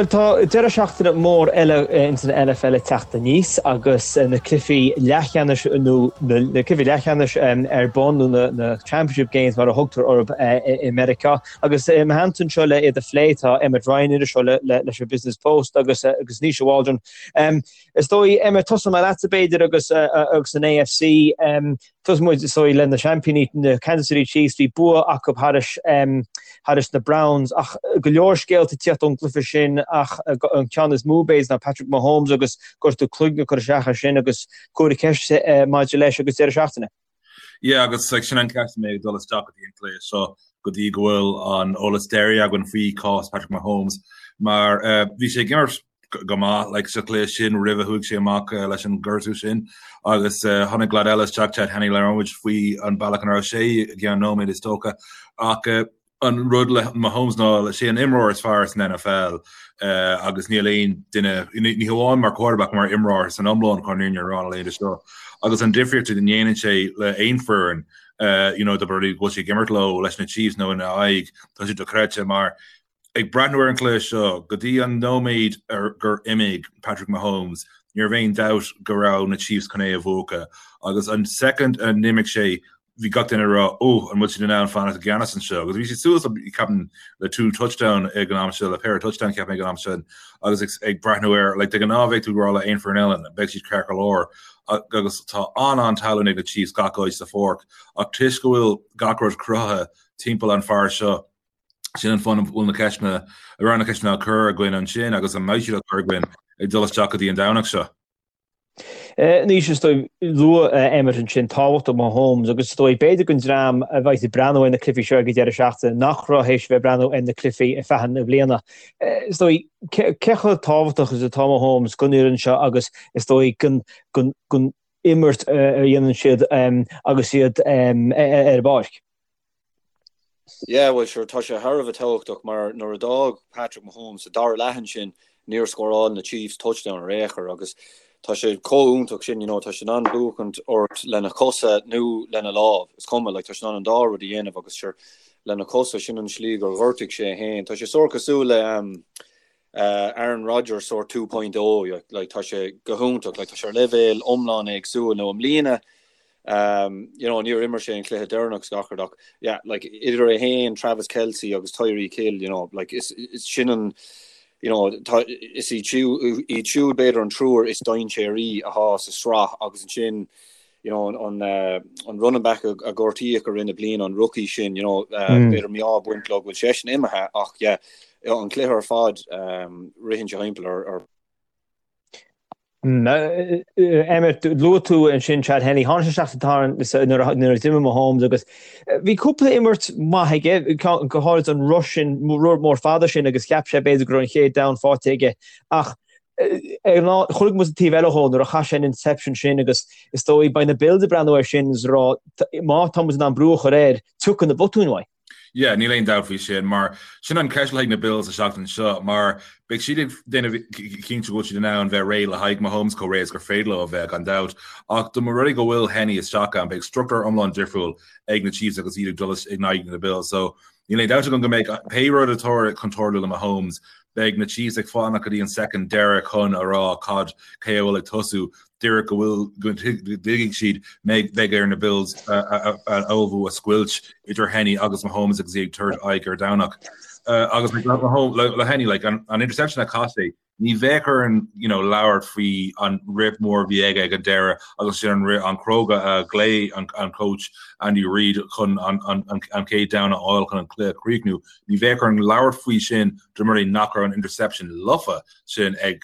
Bhuel, tá deireadh seachtaine mór eile ins an NFL ag teacht aníos agus na cluichí leathcheannais nó na cluichí leathcheannais ar bun nó na Championship Games mar a thugtar orthu i Meiriceá. Agus i mo theannta anseo le iad a phlé tá Emmet Ryan, iriseoir leis an Business Post agus agus Naoise Waldron. Is dóigh, Emmet, tosóidh mé leatsa b'fhéidir agus agus an AFC. Tosóidh muid, is dóigh, le na seaimpíní, na Kansas City Chiefs, bhí bua acu thairis, thairis na Browns ach go leor scéalta ag tíocht ón gcluiche sin ach an ceann is mó b'fhéidir ná Patrick Mahomes agus gortú cloigne ag cur isteach air sin agus comhartha ceiste maidir leis agus deireadh seachtaine. Yeah agus sin an ceist a mbeidh ag dul isteach go dtí an cluiche seo go dtí go bhfuil an eolas deiridh againn faoi cás Patrick Mahomes mar bhí sé ag imirt go maith like sa chluiche sin roimh a chuaigh sé amach leis an gortú sin agus tháinig leaid eile isteach Chad Henne labhróidh muid faoi an bealach ina raibh sé i gceann nóiméad is dócha ach an rud le Mahomes ná sé an imreoir is fearr san NFL agus níl aon duine ní hamháin mar quarterback mar imreoir san iomlán chun an fhírinne a rá na laethanta seo agus an difríocht a ndéanann sé le aon foireann you know, do go bhfuil sé ag imirt leo leis na Chiefs nó ina aghaidh tá sé dochreidte mar Ag breathnú ar an chluiche seo, go dtí an nóiméad gur imigh Patrick Mahomes, ní raibh aon dabht go raibh na Chiefs chun é a bhuachan. Agus an soicind a n-imigh sé, bhí gach duine ag rá, 'Ó, an bhfuil siad in ann fanacht i gceannas anseo? Agus bhí siad suas, ceapaim, le two touchdown ag an am seo, le péire touchdown, ceapaim, ag an am sin. Agus ag breathnú air, like, de ghnáth bheadh tú ag rá le aon foireann eile, beidh siad ceart go leor. Agus tá an-an-tallann ag na Chiefs gach áit sa pháirc. Ach toisc go bhfuil gach rud cruthaithe timpeall an fear seo, Sin an fáth a bhfuil na ceisteanna, a raibh na ceisteanna á cur againn ansin agus a mbeidh siad á cur againn ag dul isteach go dtí an Domhnach seo. Anois, is dóigh, luaigh Emmet ansin tábhacht Mahomes agus is dóigh, b'fhéidir don dream a bheidh ag breathnú ar na cluichí seo ag an deireadh seachtaine nach raibh théis bheith ag breathnú ar na cluichí ar feadh na bliana. Is dóigh, cé chomh tábhachtach is atá Mahomes don fhoireann seo agus is dóigh don imirt a dhéanann siad agus iad ar an bpáirc? Yeah, bhuel sure, tá sé thar a bheith tábhachtach mar nuair a d'fhág Patrick Mahomes sa dara leath ansin, níor scóráil na Chiefs touchdown ar aon chor agus tá sé chomh iontach sin, you know, tá sé in ann buachaint ort lena chosa nó lena lámh, is cuma, like, tá sé in ann an dá rud a dhéanamh agus sure, lena chosa, sin an slí gur ghortaigh sé é féin. Tá sé sórt cosúil le um, uh, Aaron Rodgers sórt 2.0, like, tá sé go hiontach, like, tá sé ar leibhéal iomlán éagsúil nó i mbliana Um, you know, níor imir sé an cluiche deireanach is gach rud ach yeah, like, idir é féin, Travis Kelce agus Tyreek Hill, you know, like, is, is sin an you know, tá, is iad siúd, iad siúd b'fhéidir an triúr is dainséaraí atá sa sraith agus ansin you know, an, an, uh, an running back a, a gortaíodh i rith na bliana, an rookie sin, you know, uh, mm. b'fhéidir mí-ádh ag baint leo go bhfuil seisean imithe ach yeah, an cluiche ar fad um, ritheann sé thimpeall ar, ar Emmet, luaigh tú ansin Chad Henne, tháinig sé isteach sa tarna nuair a d'imigh Mahomes agus bhí cúpla imirt maith aige, go háirid an rush sin, rud mór fada sin agus cheap sé b'fhéidir go raibh an chéad down faighte aige ach chonaic muid an taobh eile dhó nuair a chaith sé an interception sin agus is dóigh beidh na Bills ag breathnú air sin is ag rá má tá muid in ann brú a chur air, tiocfaidh na botúin uaidh. Yeah, níl aon dabht faoi sin, mar sin an ceist le haghaidh na Bills an seachtain seo, mar beidh siad ag déanamh cinnte go bhfuil siad in ann bheith réidh le haghaidh Mahomes chomh réidh is gur féidir leo a bheith, gan dabht. Ach dá mba rud é go bhfuil Henne isteach ann, beidh struchtúr iomlán difriúil ag na Chiefs agus iad ag dul in aghaidh na Bills. So, níl aon dabht agam go mbeidh pé rud atá chun tarlú le Mahomes, beidh na Chiefs ag fanacht go dtí an soicind deiridh chun a rá cad cé a bhfuil ag tosú. Díreach go bhfuil, go dtuigfidh siad, beidh ar na Bills a ullmhú a scoilt idir Henne agus Mahomes agus iad ag tabhairt aghaidh ar Domhnach. Agus le Henne, like, an interception a chaith sé, ní bheadh orainn you know, labhairt faoi an rith mór a bhí aige ag an deireadh agus sin an rith an cróga a ghlaoigh an, an coach Andy Reid chun an, an, an, an chéad down a fháil chun an cluiche a chríochnú. Ní bheadh orainn labhairt faoi sin dá mba rud é nach raibh an interception lofa sin ag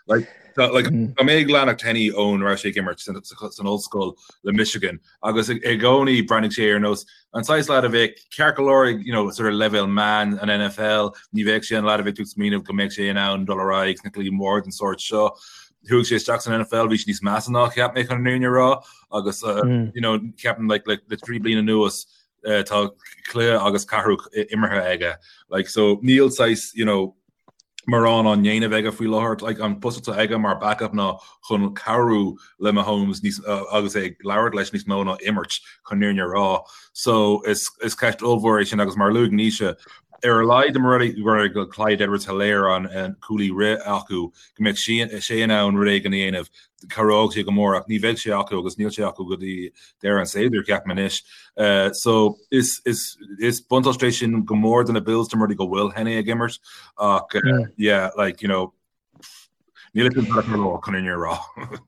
Like, tá like, tá mé ag leanacht Henne ón raibh sé ag imirt san, san ollscoil le Michigan agus i gcónaí breathnaigh sé ar nós an saghas leaid a bheadh ceart go leor ag you know, sort of leibhéal meán an NFL, ní bheadh sé an leaid a bheadh tú ag smaoineamh go mbeadh sé in ann dul ar aghaidh sna cluichí mór den sórt seo. Chuaigh sé isteach san NFL, bhí sé níos measa ná cheap mé chun an fhírinne a rá agus uh, you know, ceapaim like, like, le 3 bliana anuas uh, tá cluiche agus ceathrú imeartha aige. Like, so níl saghas, you know, mórán á ndéanamh aige faoi láthair. Like, an post atá aige mar backup ná chun cabhrú le Mahomes níos, agus é ag labhairt leis níos mó ná imirt, chun an fhírinne a rá. So, is, is ceist ollmhór é sin agus mar a luaigh Naoise, Ar a laghad dá mba rud é go bhfuil Clyde Edwards-Helaire an cúlaí rith acu, go mbeadh sé in ann rud éigin a dhéanamh, cabhródh sé go mór ach ní bheidh sé acu agus níl sé acu go dtí deireadh an tséasúir, ceapaim anois. So is is buntáiste é sin go mór do na Bills dá mba rud é go bhfuil Henne ag imirt ach yeah, like, you know, Níl a fhios agam chun an fhírinne a rá.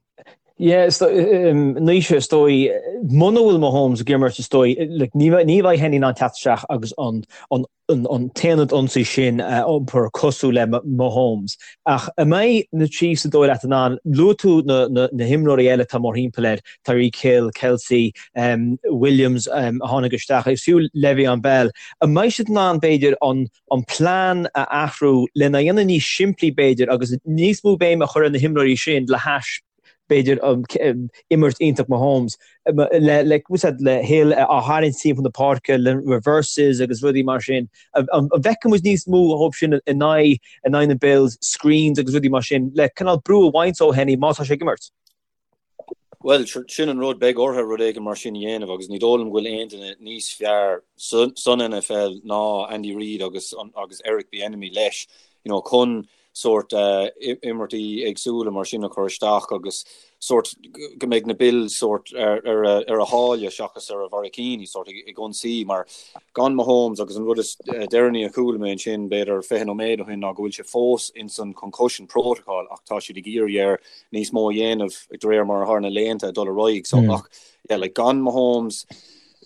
Yeah, Naoise, is dóigh, muna bhfuil Mahomes ag imirt, is dóigh, like, ní ní bheidh Henne in ann teacht isteach agus an an an an t-aonad ionsaí sin a iompar cosúil le Mahomes. Ach an mbeidh na Chiefs is dóigh leat in ann, luaigh tú na na na himreoirí eile atá mórthimpeall air, Tyreek Hill, Kelce, um, Williams um, a tháinig isteach, agus fiú Le'Veon Bell, an mbeidh siad in ann b'fhéidir an an plean a athrú lena dhéanamh níos simplí b'fhéidir agus níos mó béime a chur ar na himreoirí sin le hais b'fhéidir imirt iontach Mahomes le le le Hill á tharraingt timpeall na páirce le reverses agus rudaí mar sin. An bhfeicfidh muid níos mó dhóibh sin in aghaidh in aghaidh na Bills, screens agus rudaí mar sin le cineál brú a bhaint ó Henne má tá sé ag imirt? Bhuel, sin an rud, beidh orthu rud éigin mar sin a dhéanamh agus ní dóigh liom go bhfuil aon duine níos fearr san NFL ná Andy Reid agus agus Eric Bieniemy leis, you know, chun sórt imirtí éagsúla mar sin a chur isteach agus sórt go mbeidh na Bills sórt ar ar a ar a sháile seachas ar a bharraicíní sórt ag ionsaí mar gan Mahomes agus an rud is deireanaí a chuala mé ansin b'fhéidir 20 nóiméad ó shin ná go bhfuil sé fós ins an concussion protocol ach tá siad ag iarraidh air níos mó a dhéanamh de réir mar atá na laethanta ag dul ar aghaidh. So ach yeah, like gan Mahomes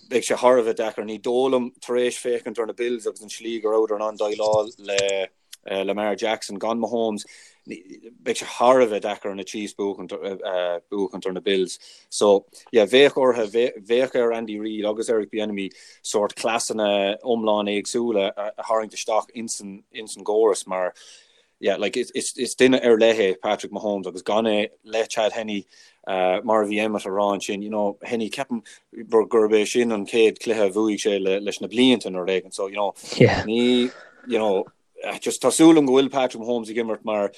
beidh sé thar a bheith deacair. Ní dóigh liom tar éis féachaint ar na Bills agus an slí go rabhadar in ann déileáil le uh, Lamar Jackson gan Mahomes beidh sé thar a bheith deacair ar na Chiefs buachaint uh, buachaint ar na Bills. So yeah, bheadh orthu bheadh ar Andy Reid agus Eric Bieniemy sórt cleasanna iomlán éagsúla a, a tharraingt isteach insan insan gcóras mar yeah, like is, is, is duine ar leith é Patrick Mahomes agus gan é le Chad Henne uh, mar a bhí Emmet a rá ansin, you know, Henne ceapaim gurb é sin an chéad cluiche a bhuaigh sé le, leis na blianta nó rud éigin. So, you know, yeah. ní, you know, eh, just tá súil agam go bhfuil Patrick Mahomes ag imirt mar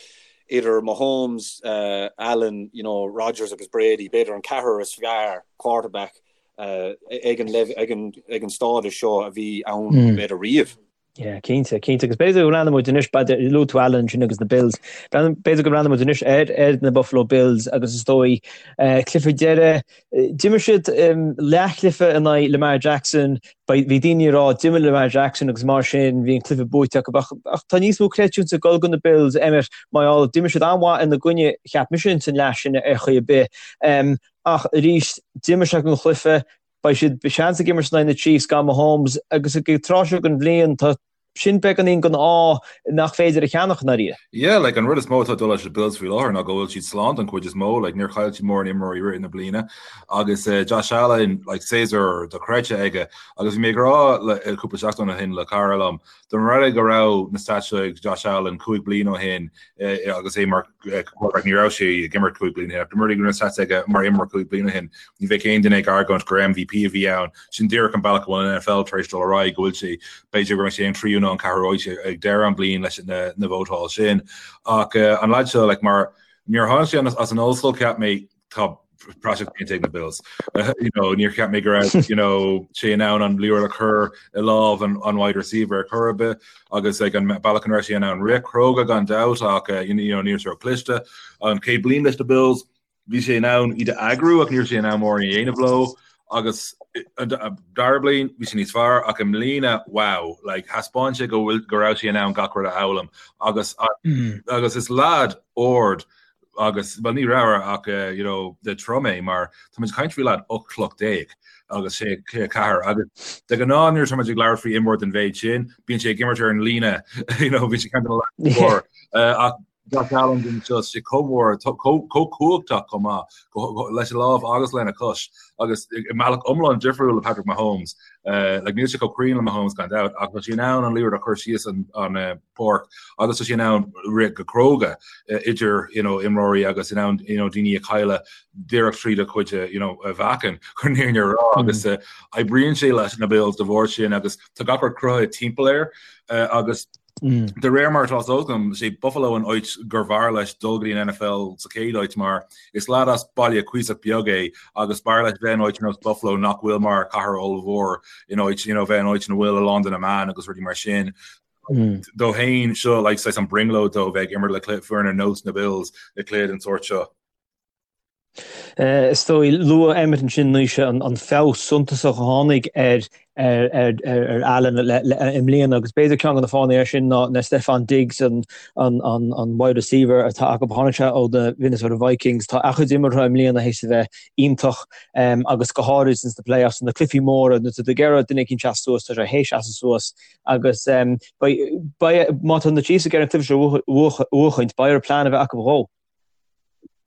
idir Mahomes, uh, Allen, you know, Rodgers agus Brady, b'fhéidir an ceathrar is fearr quarterback uh, ag an, ag an, ag an stádas seo a bhí ann mm. b'fhéidir riamh. Yeah, cinnte, cinnte. Agus b'fhéidir go mbreathnóidh muid anois, b'fhéidir, luaigh tú Allen ansin agus na Bills, b'fhéidir go mbreathnóidh muid anois ar, ar na Buffalo Bills agus is dóigh, eh, cluiche deiridh, d'imir siad leathchluiche in aghaidh Lamar Jackson, bhí daoine ag rá d'imir Lamar Jackson agus mar sin bhí an cluiche buaite acu ach, ach tá níos mó creidiúint ag dul go na Bills, Emmet, mar gheall, d'imir siad an-mhaith ina gcoinne, cheap mise ins an leath sin ar chaoi ar bith. Ach arís, d'imir siad an chluiche, Beidh siad seans ag imirt in aghaidh na Chiefs gan Mahomes agus ag an tráth seo den bhliain tá sin beagáinín den ádh nach féidir a cheannach i ndáiríre. Yeah, like an rud is mó atá ag dul leis na Bills faoi láthair ná go bhfuil siad slán don chuid is mó, like níor chaill siad mórán imreoirí i rith na bliana agus uh, Josh Allen, like séasúr dochreidte aige agus bhí mé ag rá le eh, cúpla seachtain ó shin le cara liom, dá mba rud é go raibh na stats seo ag Josh Allen 5 bliana ó shin eh, agus é mar quarterback ní raibh sé ag imirt 5 bliana ó shin ach dá mba rud é go raibh na stats aige mar imreoir 5 bliana ó shin ní bheadh aon duine ag argóint gur MVP a bhí ann. Sin díreach an bealach go bhfuil an NFL tar éis dul ar aghaidh go bhfuil sé b'fhéidir go mbeidh sé an tríú nó an ceathrú áit ag deireadh an bliain leis na na vótáil sin. Ach uh, an lad seo like, mar nuair a tháinig sé as an ollscoil cheap mé tá praiseach déanta ag na Bills. Uh, you know, níor cheap mé go raibh you know, sé in ann an liathróid a chur i lámh an, an wide receiver ar chor ar bith agus ag an bealach an raibh sé in ann rith cróga gan dabht ach uh, you know, ní raibh sé cliste an chéad bliain leis na Bills bhí sé in ann iad a eagrú ach ní raibh sé in ann mórán a dhéanamh leo agus an dara bliain bhí sé níos fearr ach i mbliana wow like thaispeáin sé go bhfuil go raibh sé in ann gach rud a fhoghlaim agus mm. agus is lad ard agus well ní raibh ach uh, you know de trom é mar tá muid ag caint faoi lad 18 troigh agus sé 4 agus de ghnáth nuair tá muid ag labhairt faoi imreoir den mhéid sin bíonn sé ag imirt ar an líne you know bhí sé ceann mór uh, ach Josh Allen den seo sé chomh mór chomh cumhachtach chomh maith leis an lámh agus lena chois agus i mbealach iomlán difriúil le Patrick Mahomes uh, like níl sé chomh cruinn le Mahomes gan dabht ach tá sé in ann an liathróid a chur síos an, an uh, páirc agus tá sé in ann rith go cróga idir you know, imreoirí agus in ann you know, daoine a chailleadh díreach tríd a chuid you know, a mheáchan chun an fhírinne a rá mm. agus uh, oibríonn sé leis na Bills de bharr sin agus tá gach rud cruthaithe timpeall air uh, agus mm. de réir mar atá agam sé Buffalo an áit gur bhfearr leis dul go dtí an NFL sa chéad áit mar is lad as baile cuíosach beag é agus b'fhearr leis bheith in áit ar nós Buffalo nach bhfuil mar cathair ollmhór in áit you know, bheith in áit ina bhfuil a lán de na meáin agus rudaí mar sin. Dó féin seo like saghas an brionglóid dó bheith ag imirt le cluiche foireann ar nós na Bills i cluiche den sórt seo. Is dóigh, luaigh Emmet ansin Naoise an feabhas suntasach a tháinig ar ar Allen i mbliana agus b'fhéidir ceann de na fáthanna air sin ná ná Stefon Diggs an an wide receiver atá acu. Tháinig sé ó na Minnesota Vikings. Tá a chuid imeartha i mbliana théis a bheith iontach agus go háirid ins na playoffs, na cluichí móra, nuair atá tú ag iarraidh duine éicint seasamh suas, tá sé théis seasamh suas agus beidh, má tá na Chiefs ag iarraidh an cluiche seo a bhuachaint, beidh orthu plean a bheith acu dhó.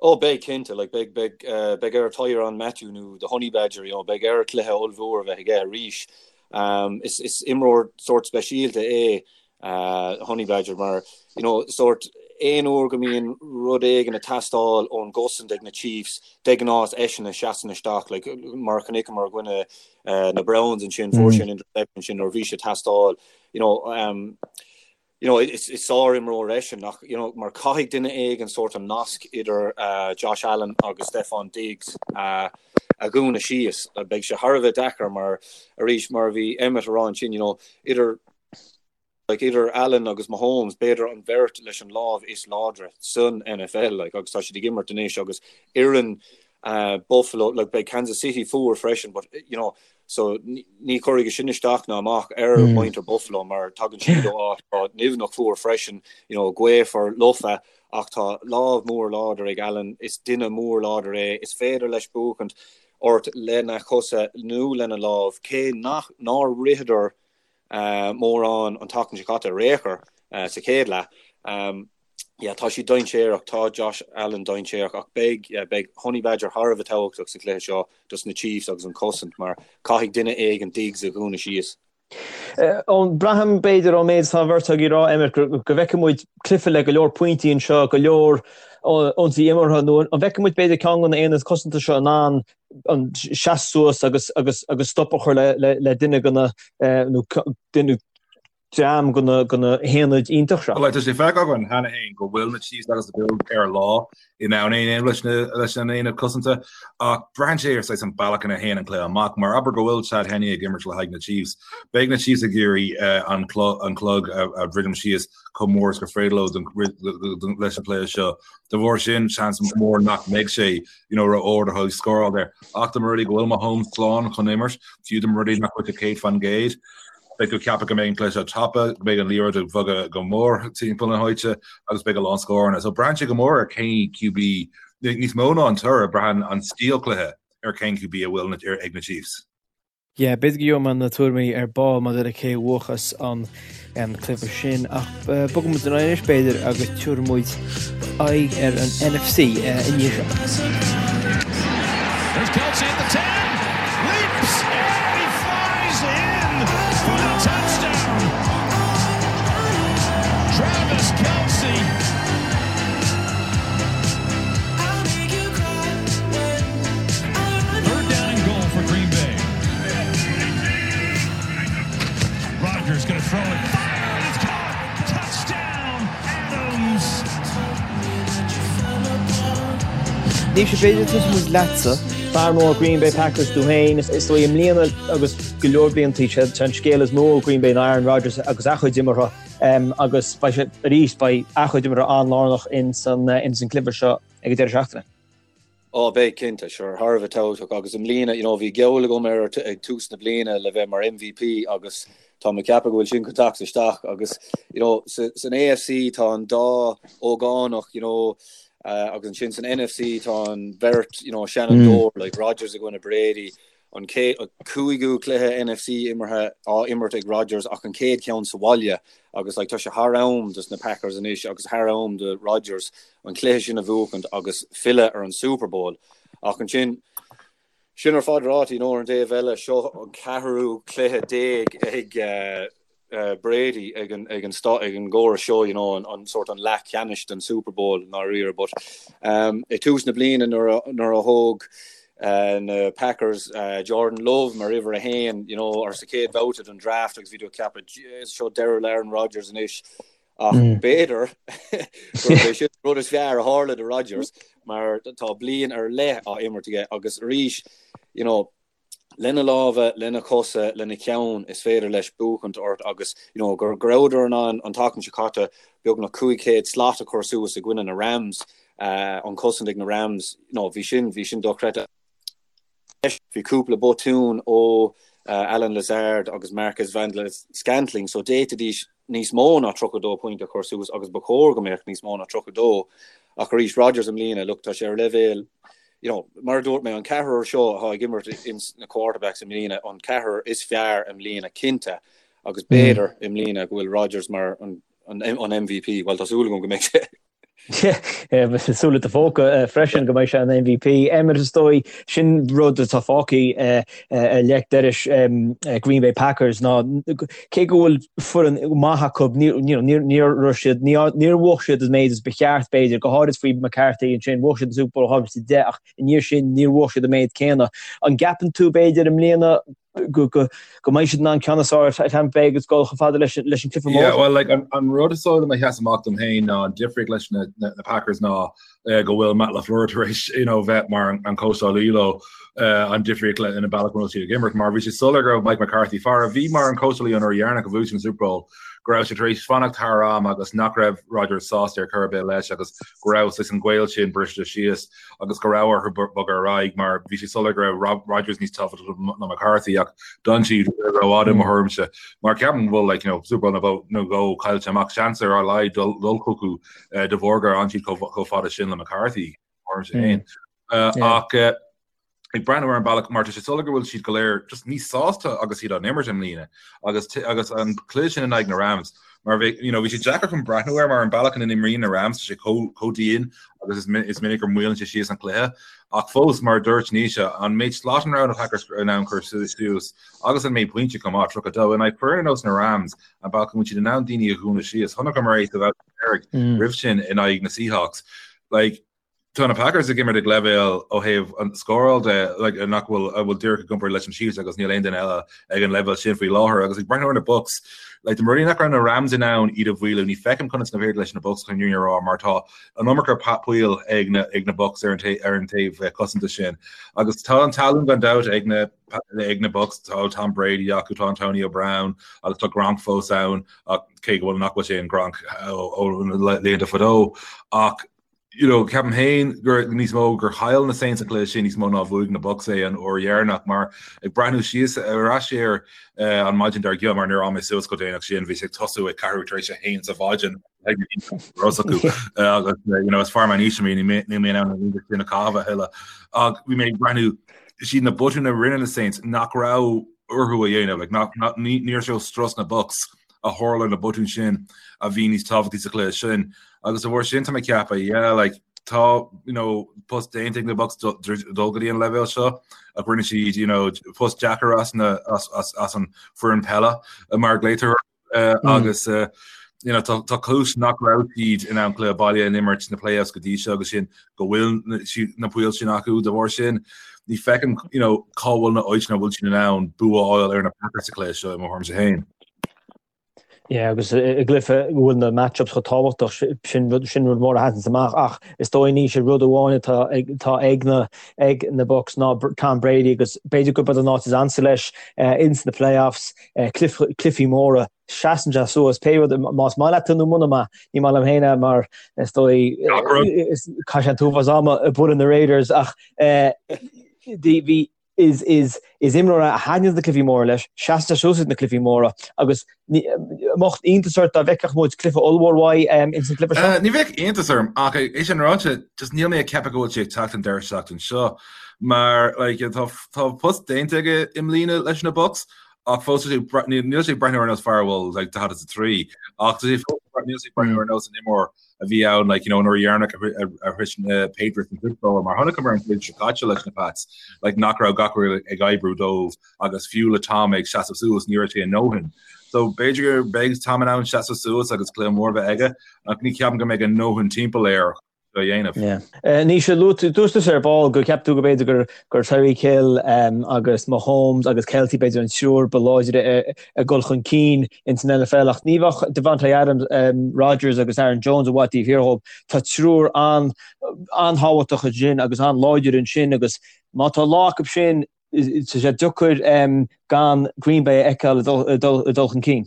Oh beidh cinnte, like beidh beidh beidh ar Tyrann Mathieu nó the Honey Badger, you know, beidh air cluiche ollmhór a bheith aige arís. Um, is is imreoir sórt speisialta é uh, Honey Badger mar you know, sórt aon uair go mbíonn rud éigin ag teastáil ón gcosaint ag na Chiefs, de ghnáth is eisean a sheasann isteach, like, mar a chonaiceamar i gcoinne uh, na Browns ansin, fuair sé an interception sin nuair a bhí sé ag teastáil, you know, um, you know, is is sár-imreoir eisean ach, you know, mar caithfidh duine éigin sórt an nasc idir uh, Josh Allen agus Stefon Diggs uh, a dhúnadh síos. Beidh sé thar a bheith deacair mar arís mar a bhí Emmet a rá ansin, you know, idir like, idir Allen agus Mahomes, b'fhéidir an bheirt leis an lámh is láidre san NFL like, agus tá siad ag imirt anois agus fhoireann uh, Buffalo, like, beidh Kansas City fuar freisin, but you know, So ní chuirfidh sin isteach ná amach ar mhuintir Buffalo mar tagann siad ó áit atá nimhneach fuar freisin, you know, gaofar lofa ach tá lámh mór láidir ag Allen, is duine mór láidir é, is féidir leis buachaint ort lena chosa nó lena lámh, cé nach nár ritheadar mórán an tseachtain seo caite ar aon chor sa chéad leath. Yeah, tá siad dainséarach, tá Josh Allen dainséarach ach beidh, yeah, beidh Honey Badger thar a bheith tábhachtach sa chluiche seo dos na Chiefs agus an cosaint mar caithfidh duine éigin Diggs a dhúnadh síos. Eoin, braithim, b'fhéidir, ón méid atá an bheirt agaibh ag rá, Emmet, go bhfeicfidh muid cluiche le go leor pointí anseo, go leor ionsaí imeartha, nó an bhfeicfidh muid, b'fhéidir, ceann de na haonaid cosanta seo in ann an seasamh suas agus agus agus stop a chur le le le duine de na nó duine dream de na de na haonaid iontach seo. Bhuel, tá sé feicthe againn cheana féin go bhfuil na Chiefs agus na Bills ar a lá in ann é a dhéanamh leis na leis an aonad cosanta ach braitheann sé ar saghas an bealach ina théann an cluiche amach. Mar abair go bhfuil Chad Henne ag imirt le haghaidh na Chiefs, beidh na Chiefs ag iarraidh an an clog a dhruidim síos chomh mór is gur féidir leo leis an chluiche seo. De bharr sin, seans mór nach mbeidh sé you know, ró-ard a thuilleadh scóráil air. Ach dá mba rud é go bhfuil Mahomes slán chun imirt, fiú dá mba rud é nach bhfuil sé 100%, beidh tú ag ceapadh go mbeidh an cluiche seo tapa, go mbeidh an liathróid ag bogadh go mór timpeall na háite agus beidh a lán scóranna. So braitheann sé go mór ar cén QB, níos mó ná an toradh, braitheann an stíl cluiche ar cén QB a bhfuil ag na Chiefs. Yeah, b'fhéidir go gheobhaidh mé na tuairimí ar ball maidir le cé a bhuafas an cluiche sin ach bogfaidh muid ar aghaidh anois b'fhéidir agus tabharfaidh muid aghaidh ar an NFC i ndiaidh seo. There's Kelce at the 10, leaps and he flies in for the touchdown. Travis Kelce. Third down and goal for Green Bay. Rodgers going to throw it. Fire! It's caught! Touchdown, Adams! Naoise, b'fhéidir tosóidh muid leatsa. Fear mór Green Bay Packers tú féin. Is dóigh i mbliana agus go leor blianta sé an scéal is mó ó Green Bay ná Aaron Rodgers agus a chuid imeartha agus beidh sé arís beidh a chuid imeartha an-lárnach ins an cluiche seo ag an deireadh seachtaine. Ó, beidh, cinnte, sure, thar a bheith tábhachtach agus i mbliana, you know, bhí geall agam air ag tús na bliana le bheith mar MVP agus tá mé ag ceapadh go bhfuil sin chun teacht isteach agus, you know, san AFC tá an dá ógánach, you know, uh, agus ansin san NFC tá an bheirt, you know, seanfhondúir, mm. like Rodgers i gcoinne Brady, an cúigiú cluiche NFC imeartha á imirt ag Rodgers ach an chéad cheann sa bhaile agus like, tá sé thar am dos na Packers anois agus thar am do Rodgers an cluiche sin a bhuachaint agus filleadh ar an Super Bowl. Ach ansin, sin ar fad ráite, you know, ar an dtaobh eile, seo an ceathrú cluiche déag ag uh, uh, Brady ag an, ag an, ag an gcóras seo, you know, an, an sort an leath ceannais den Super Bowl i ndáiríre, but um, i tús na bliana nuair a, nuair a thóg uh, na Packers uh, Jordan Love mar uimhir a haon, you know, ar sa chéad bhabhta den draft agus bhí tú ag ceapadh seo deireadh le Aaron Rodgers anois Ach b'fhéidir gurb é sin an rud is fearr a tharla do Rodgers mar tá bliain ar leith á imirt aige agus arís, you know, Lena lámha, lena chosa, lena cheann is féidir leis buachaint ort agus you know go rabhadar in ann an tseachtain seo caite beagnach 500 slat a chur suas i gcoinne na Rams, an chosaint ag na Rams, you know bhí sin, bhí sin dochreidte. Bhí cúpla botún ó Allen Lazard agus Marquez Valdes-Scantling so d'fhéadfaidís níos mó ná 32 pointe a chur suas agus ba chóir go mbeadh níos mó ná 32 ach arís Rodgers i mbliana, look tá sé ar leibhéal you know, mar a dúirt mé, an ceathrar seo atá ag imirt ins na quarterbacks i mbliana, an ceathrar is fearr i mbliana cinnte, agus b'fhéidir i mbliana go bhfuil Rodgers mar an, an, an MVP, bhuel tá súil agam go mbeidh sé. Súil i do phóca freisin go mbeidh sé an MVP. Emmet is dóigh, sin rud atá fágtha ar leic dorais Green Bay Packers ná cé go bhfuil foireann maith acu, níor raibh siad, níor bhuaigh siad an méid is ba cheart, b'fhéidir, go háirid faoi McCarthy ansin, bhuaigh siad an Super Bowl 2010 ach i ndiaidh sin níor bhuaigh siad an méid céanna. An gceapann tú, b'fhéidir, i mbliana go mbeidh siad in ann ceann is fearr ar Tampa Bay agus dul chomh fada leis an cluiche mór? Yeah, well, like, an rud is dóigh liom a sheas amach dom féin ná an difríocht leis na Packers ná go bhfuil Matt LaFleur tar éis you know, bheith mar an cóitseálaí leo an difríocht le ina bealach bhfuil siad ag imirt mar bhí sé soiléir go raibh Mike McCarthy fear a bhí mar an cóitseálaí an uair dheireanach a bhuaigh siad an Super Bowl go raibh sé tar éis fanacht thar am agus nach raibh Rodgers sásta ar chor ar bith leis agus go raibh saghas an gaol sin briste síos agus go raibh orthu bogadh ar aghaidh mar bhí sé soiléir go raibh Rodgers níos tábhachtaí ná McCarthy ach d'fhan siad rófhada i mo thuairimse mar ceapaim go bhfuil like, you know, Super Bowl nó dhó caillte amach seans ar a laghad dul chucu de bharr gur fhan siad chomh fada sin le McCarthy mar sin féin. Ach ag breathnú ar an bealach mar tá sé soiléir go bhfuil siad go léir just níos sásta agus iad á n-imirt i mbliana agus agus an cluiche sin in aghaidh na Rams mar bhí you know bhí sé deacair chun breathnú air mar an bealach ina n-imríonn na Rams tá sé chomh chomh dian agus is is minic gur maolaíonn sé síos an cluiche ach fós mar a dúirt Naoise an méid slat a raibh na Packers in ann cur suas agus an méid pointe chomh maith 32 in aghaidh foireann ar nós na Rams an bealach go bhfuil siad in ann daoine a dhúnadh síos chonaiceamar é sa bhabhta deiridh roimh sin in aghaidh na Seahawks. Like, tá na Packers ag imirt ag leibhéal ó thaobh an scóráil de like, nach bhfuil a bhfuil díreach i gcomparáid leis an Chiefs agus níl aon duine eile ag an leibhéal sin faoi láthair agus ag breathnú ar na Bucs like, dá mba rud é nach raibh na Rams in ann iad a mhaolú ní feicim conas nach féidir leis na Bucs chun a rá mar tá an iomarca poill ag na ag na Bucs ar an ar an taobh eh, cosanta sin agus tá an tallann gan dabht ag na ag na Bucs tá Tom Brady acu tá Antonio Brown agus tá Gronk fós ann ach cé go bhfuil nach bhfuil sé an Gronk ó na laethanta fadó ach you know, ceapaim féin gur níos mó gur chaill na Saints an cluiche sin níos mó ná bhuaigh na Bucs é an uair dheireanach mar ag breathnú síos ar ais air uh, an maidin dár gcionn mar níor fhan mé suas chomh déanach sin bhí sé ag tosú ag ceathrú tar éis a haon sa mhaidin acu agus you know, is fear meánaoise mé níl mé in ann an sin a chaitheamh a thuilleadh ach bhí mé ag breathnú siad na botúin a rinne na Saints nach raibh orthu a dhéanamh like, nach, nach, níor sé strus na Bucs a tharla na botúin sin a bhí níos tábhachtaí sa chluiche sin agus de bharr sin tá mé ag ceapadh yeah like tá you know post déanta ag na Bucs dul go dtí an leibhéal seo ach rinne siad you know post deacair as na as, as, as an foireann peile mar glaotar agus you know tá tá cúis nach raibh siad in ann cluiche baile a imirt sna playoffs go dtí seo agus sin go bhfuil na poill sin acu de bharr sin ní feicim you know cá bhfuil na áiteanna bhfuil siad in ann bua a fháil ar na Packers sa chluiche seo i mo thuairimse féin. Yeah, agus i gcluiche go bhfuil na matchups chomh tábhachtach sin rud sin rud mór a sheasann amach ach is dóigh Naoise rud amháin atá ag atá ag na ag na Bucs ná Tom Brady agus b'fhéidir gurb an áit is ansa leis ins na playoffs cluichí móra, seasann sé suas, pé rud, más maith leat nó muna maith, ní maith liom féin é mar is dóigh, chaith sé an t-uafás ama ag bualadh na Raiders ach bhí, is, is, is imreoir é a thaitníonn na cluichí móra leis, seasann sé suas ag na cluichí móra agus mbeadh iontas ort dá bhfeicfeadh muid cluiche ollmhór uaidh ins an gcluiche seo? Ní bheadh iontas orm ach é sin ráite, just níl mé ag ceapadh go bhfuil sé ag teacht an deireadh seachtain seo mar like, tá, tá post déanta aige i mbliana leis na Bucs ach fós níl sé ag breathnú ar nós fear a bhfuil like 43 ach tá sé fós níl sé ag breathnú ar nós an imreoir a bhí ann like you know an uair dheireanach a shroich na Patriots an Super Bowl mar chonaiceamar an bhliain seo caite leis na Pats like nach raibh gach rud ag oibriú dóibh agus fiú le Tom ag seasamh suas ní raibh sé a ndóthain. So b'fhéidir go mbeidh Tom in ann seasamh suas agus cluiche mór bheith aige ach ní cheapaim go mbeidh a ndóthain timpeall air a dhéanamh. Naoise, luaigh dúirt tusa ar ball go gceap tú go b'fhéidir gur gur Tyreek Hill agus Mahomes agus Kelce b'fhéidir an triúr ba láidre ag dul chun cinn ins an NFL ach ní bheadh Davante Adams, Rodgers agus Aaron Jones i bhfad taobh thiar dhóibh. Tá triúr an-tábhachtach ansin agus an-láidir ansin agus má tá lá acu sin. Tá sé deacair gan Green Bay a fheiceáil ag dul chun cinn.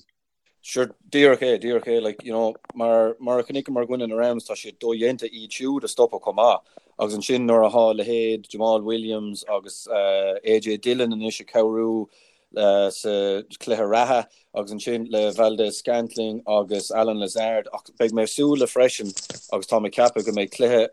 Sure, díreach é, díreach é, like, you know, mar, mar a chonaiceamar i gcoinne na Rams, tá sé dodhéanta iad siúd a stopadh chomh maith. Agus ansin nuair atá leithéid Jamaal Williams agus AJ Dillon anois ag cabhrú sa chluiche reatha agus ansin le Valdes-Scantling agus Allen Lazard ach beidh mé ag súil le freisin agus tá mé ag ceapadh go mbeidh cluiche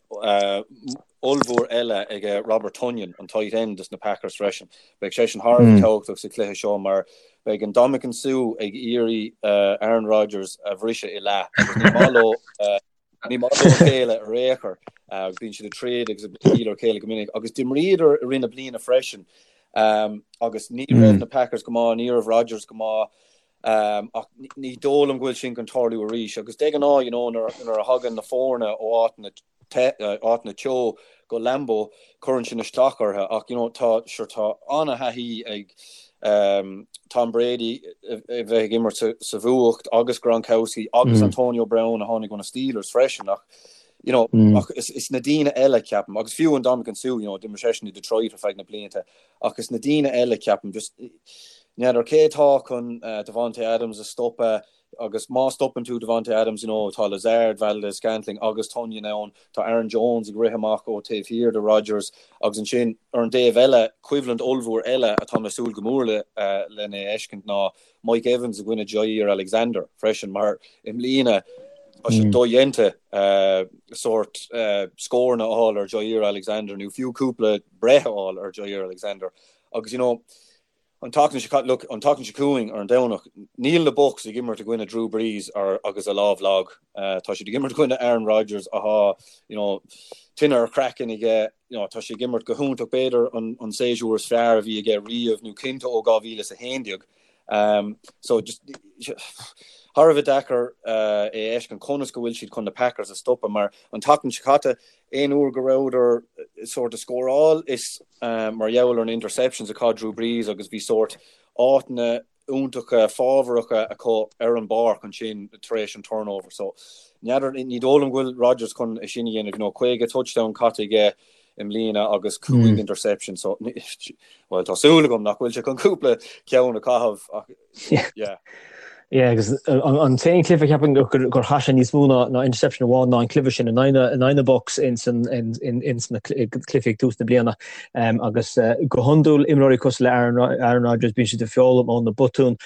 ollmhór eile ag Robert Tonyan, an tight end dos na Packers freisin. Beidh seisean thar a bheith tábhachtach sa chluiche seo mar beidh Ndamukong Suh ag iarraidh Aaron Rodgers a bhriseadh i leath agus ní maith leo ní maith leo a chéile ar aon chor agus bíonn siad ag troid agus ag bualadh ar a chéile go minic agus d'imríodar i rith na bliana freisin agus ní raibh na Packers go maith, ní raibh Rodgers go maith ach ní dóigh liom go bhfuil sin chun tarlú arís agus de ghnáth you know nuair a thagann na foirne ó áiteanna áiteanna teo go Lambeau, cuireann sin isteach orthu ach you know tá sure tá an-thaithí ag Tom Brady a bheith ag imirt sa bhfuacht agus Gronkowski agus Antonio Brown a tháinig ó na Steelers freisin ach you know ach is, is na daoine eile ceapaim agus fiú Ndamukong Suh you know d'imir seisean i Detroit ar feadh na blianta ach is na daoine eile ceapaim just n'fheadar cé atá chun uh, Davante Adams a stopadh Agus má stopann tú Davante Adams, you know, tá Lazard, Valdes-Scantling agus Tonyan ann, tá Aaron Jones ag rith amach ó taobh thiar de Rodgers agus ansin ar an dtaobh eile, coimhlint ollmhór eile atá mé ag súil go mór le lena fheiscint ná Mike Evans i gcoinne Jaire Alexander freisin mar i mbliana tá sé dodhéanta sórt scóranna a fháil ar Jaire Alexander nó fiú cúpla breith a fháil ar Jaire Alexander agus you know, An tseachtain seo caite, look, an tseachtain seo chugainn ar an Domhnach, níl na Bucs ag imirt i gcoinne Drew Brees ar agus a lámh lag. Tá siad ag imirt i gcoinne Aaron Rodgers atá, you know, tine ar a chraiceann aige, you know, tá sé ag imirt go hiontach, b'fhéidir an an séasúr is fearr a bhí aige riamh nó cinnte ó 2011. Um, so just thar a bheith deacair uh, é a fheiscint conas go bhfuil siad chun na Packers a stopadh mar an tseachtain seo caite Aon uair go rabhadar sórt ag scóráil is mar gheall ar na interceptions a chaith Drew Brees agus bhí sórt áiteanna iontacha fábharacha acu ar an bpáirc ansin tar éis an turnover. So n'fheadar, ní dóigh liom go bhfuil Rodgers chun é sin a dhéanamh, you know, 50 touchdown caite aige i mbliana agus 5 interception so bhuel tá súil agam nach bhfuil sé chun cúpla ceann a chaitheamh ach Yeah. Yeah, agus an t-aon chluiche ceapaim gur chaith sé níos mó ná interception amháin ná an cluiche sin in aghaidh na Bucs ins na cluichí ag tús na bliana. Agus go hiondúil imreoirí cosúil le Aaron Rodgers bíonn siad ag foghlaim ó na botúin.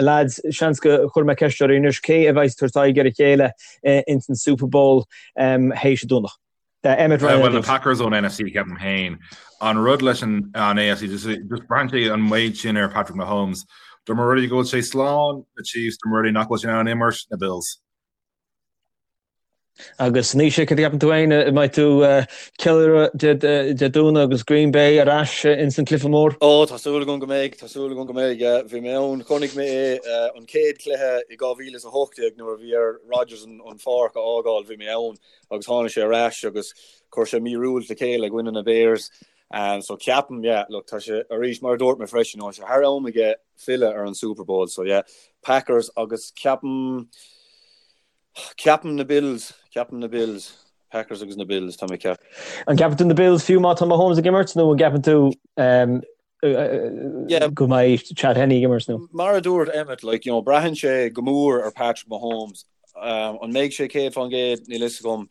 Lads, seans go chuir mé ceist oraibh anois, cé a bheidh ag tabhairt aghaidh ar a chéile ins an Super Bowl théis an Domhnach? Emmet Ryan. Bhuel, na Packers ón NFC, ceapaim féin. An rud leis an AFC, just braitheann sé an méid sin ar Patrick Mahomes. Dá mba rud é go bhfuil sé slán, na Chiefs, dá mba rud é nach bhfuil sé in ann imirt, na Bills. Agus Naoise, cad a cheapann tú féin? An mbeidh tú ceiliúradh Dé Domhnaigh agus Green Bay ar ais ins an cluiche mór? Ó, tá súil agam go mbeidh, tá súil agam go mbeidh, yeah. Bhí mé ann, chonaic mé é an chéad chluiche i 2018 nuair a bhí ar Rodgers an pháirc a fhágáil, bhí mé ann. agus tháinig sé ar ais agus chuir sé míorúilt le chéile i gcoinne na Bears. So ceapaim, yeah, look, tá sé arís, mar a dúirt mé freisin, tá sé thar am aige filleadh ar an Super Bowl. So yeah, Packers agus ceapaim, ceapaim na Bills, ceapaim na Bills. Packers agus na Bills, tá mé ag ceapadh. An gceapann tú na Bills fiú má tá Mahomes ag imirt nó an gceapann tú go mbeidh Chad Henne ag imirt nó? Mar a dúirt Emmet, like, you know, braitheann sé go mór ar Patrick Mahomes. An mbeidh sé 100%? Níl fhios agam.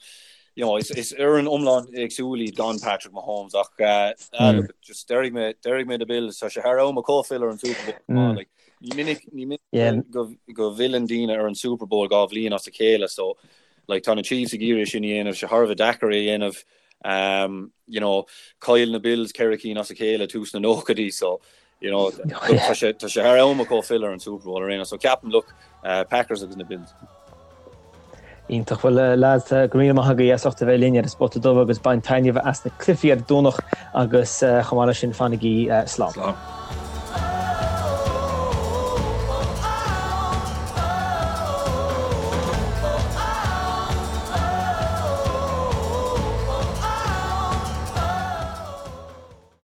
You know, is, is fhoireann iomlán éagsúil iad gan Patrick Mahomes ach uh, mm. look, just déarfaidh mé, déarfaidh mé na Bills, tá sé thar am acu filleadh ar an Super Bowl. Mm. Like, ní minic, ní minic yeah. go, go bhfilleann daoine ar an Super Bowl dhá bhliain as a chéile, so like, tá na Chiefs ag iarraidh sin a dhéanamh, sé thar a bheith deacair é a dhéanamh. Um, you know, chaill na Bills ceithre cinn as a chéile tús na nóchaidí, so you know, tá sé tá sé thar am acu filleadh ar an Super Bowl ar aon so ceapaim look, uh, Packers agus na Bills. Iontach bhuel lads go raibh míle maith agaibh as ucht a bheith linn ar an Spota Dubh agus bain taitneamh as na cluichí ar an Domhnach agus chomh maith leis sin fanaigí slán. Slán.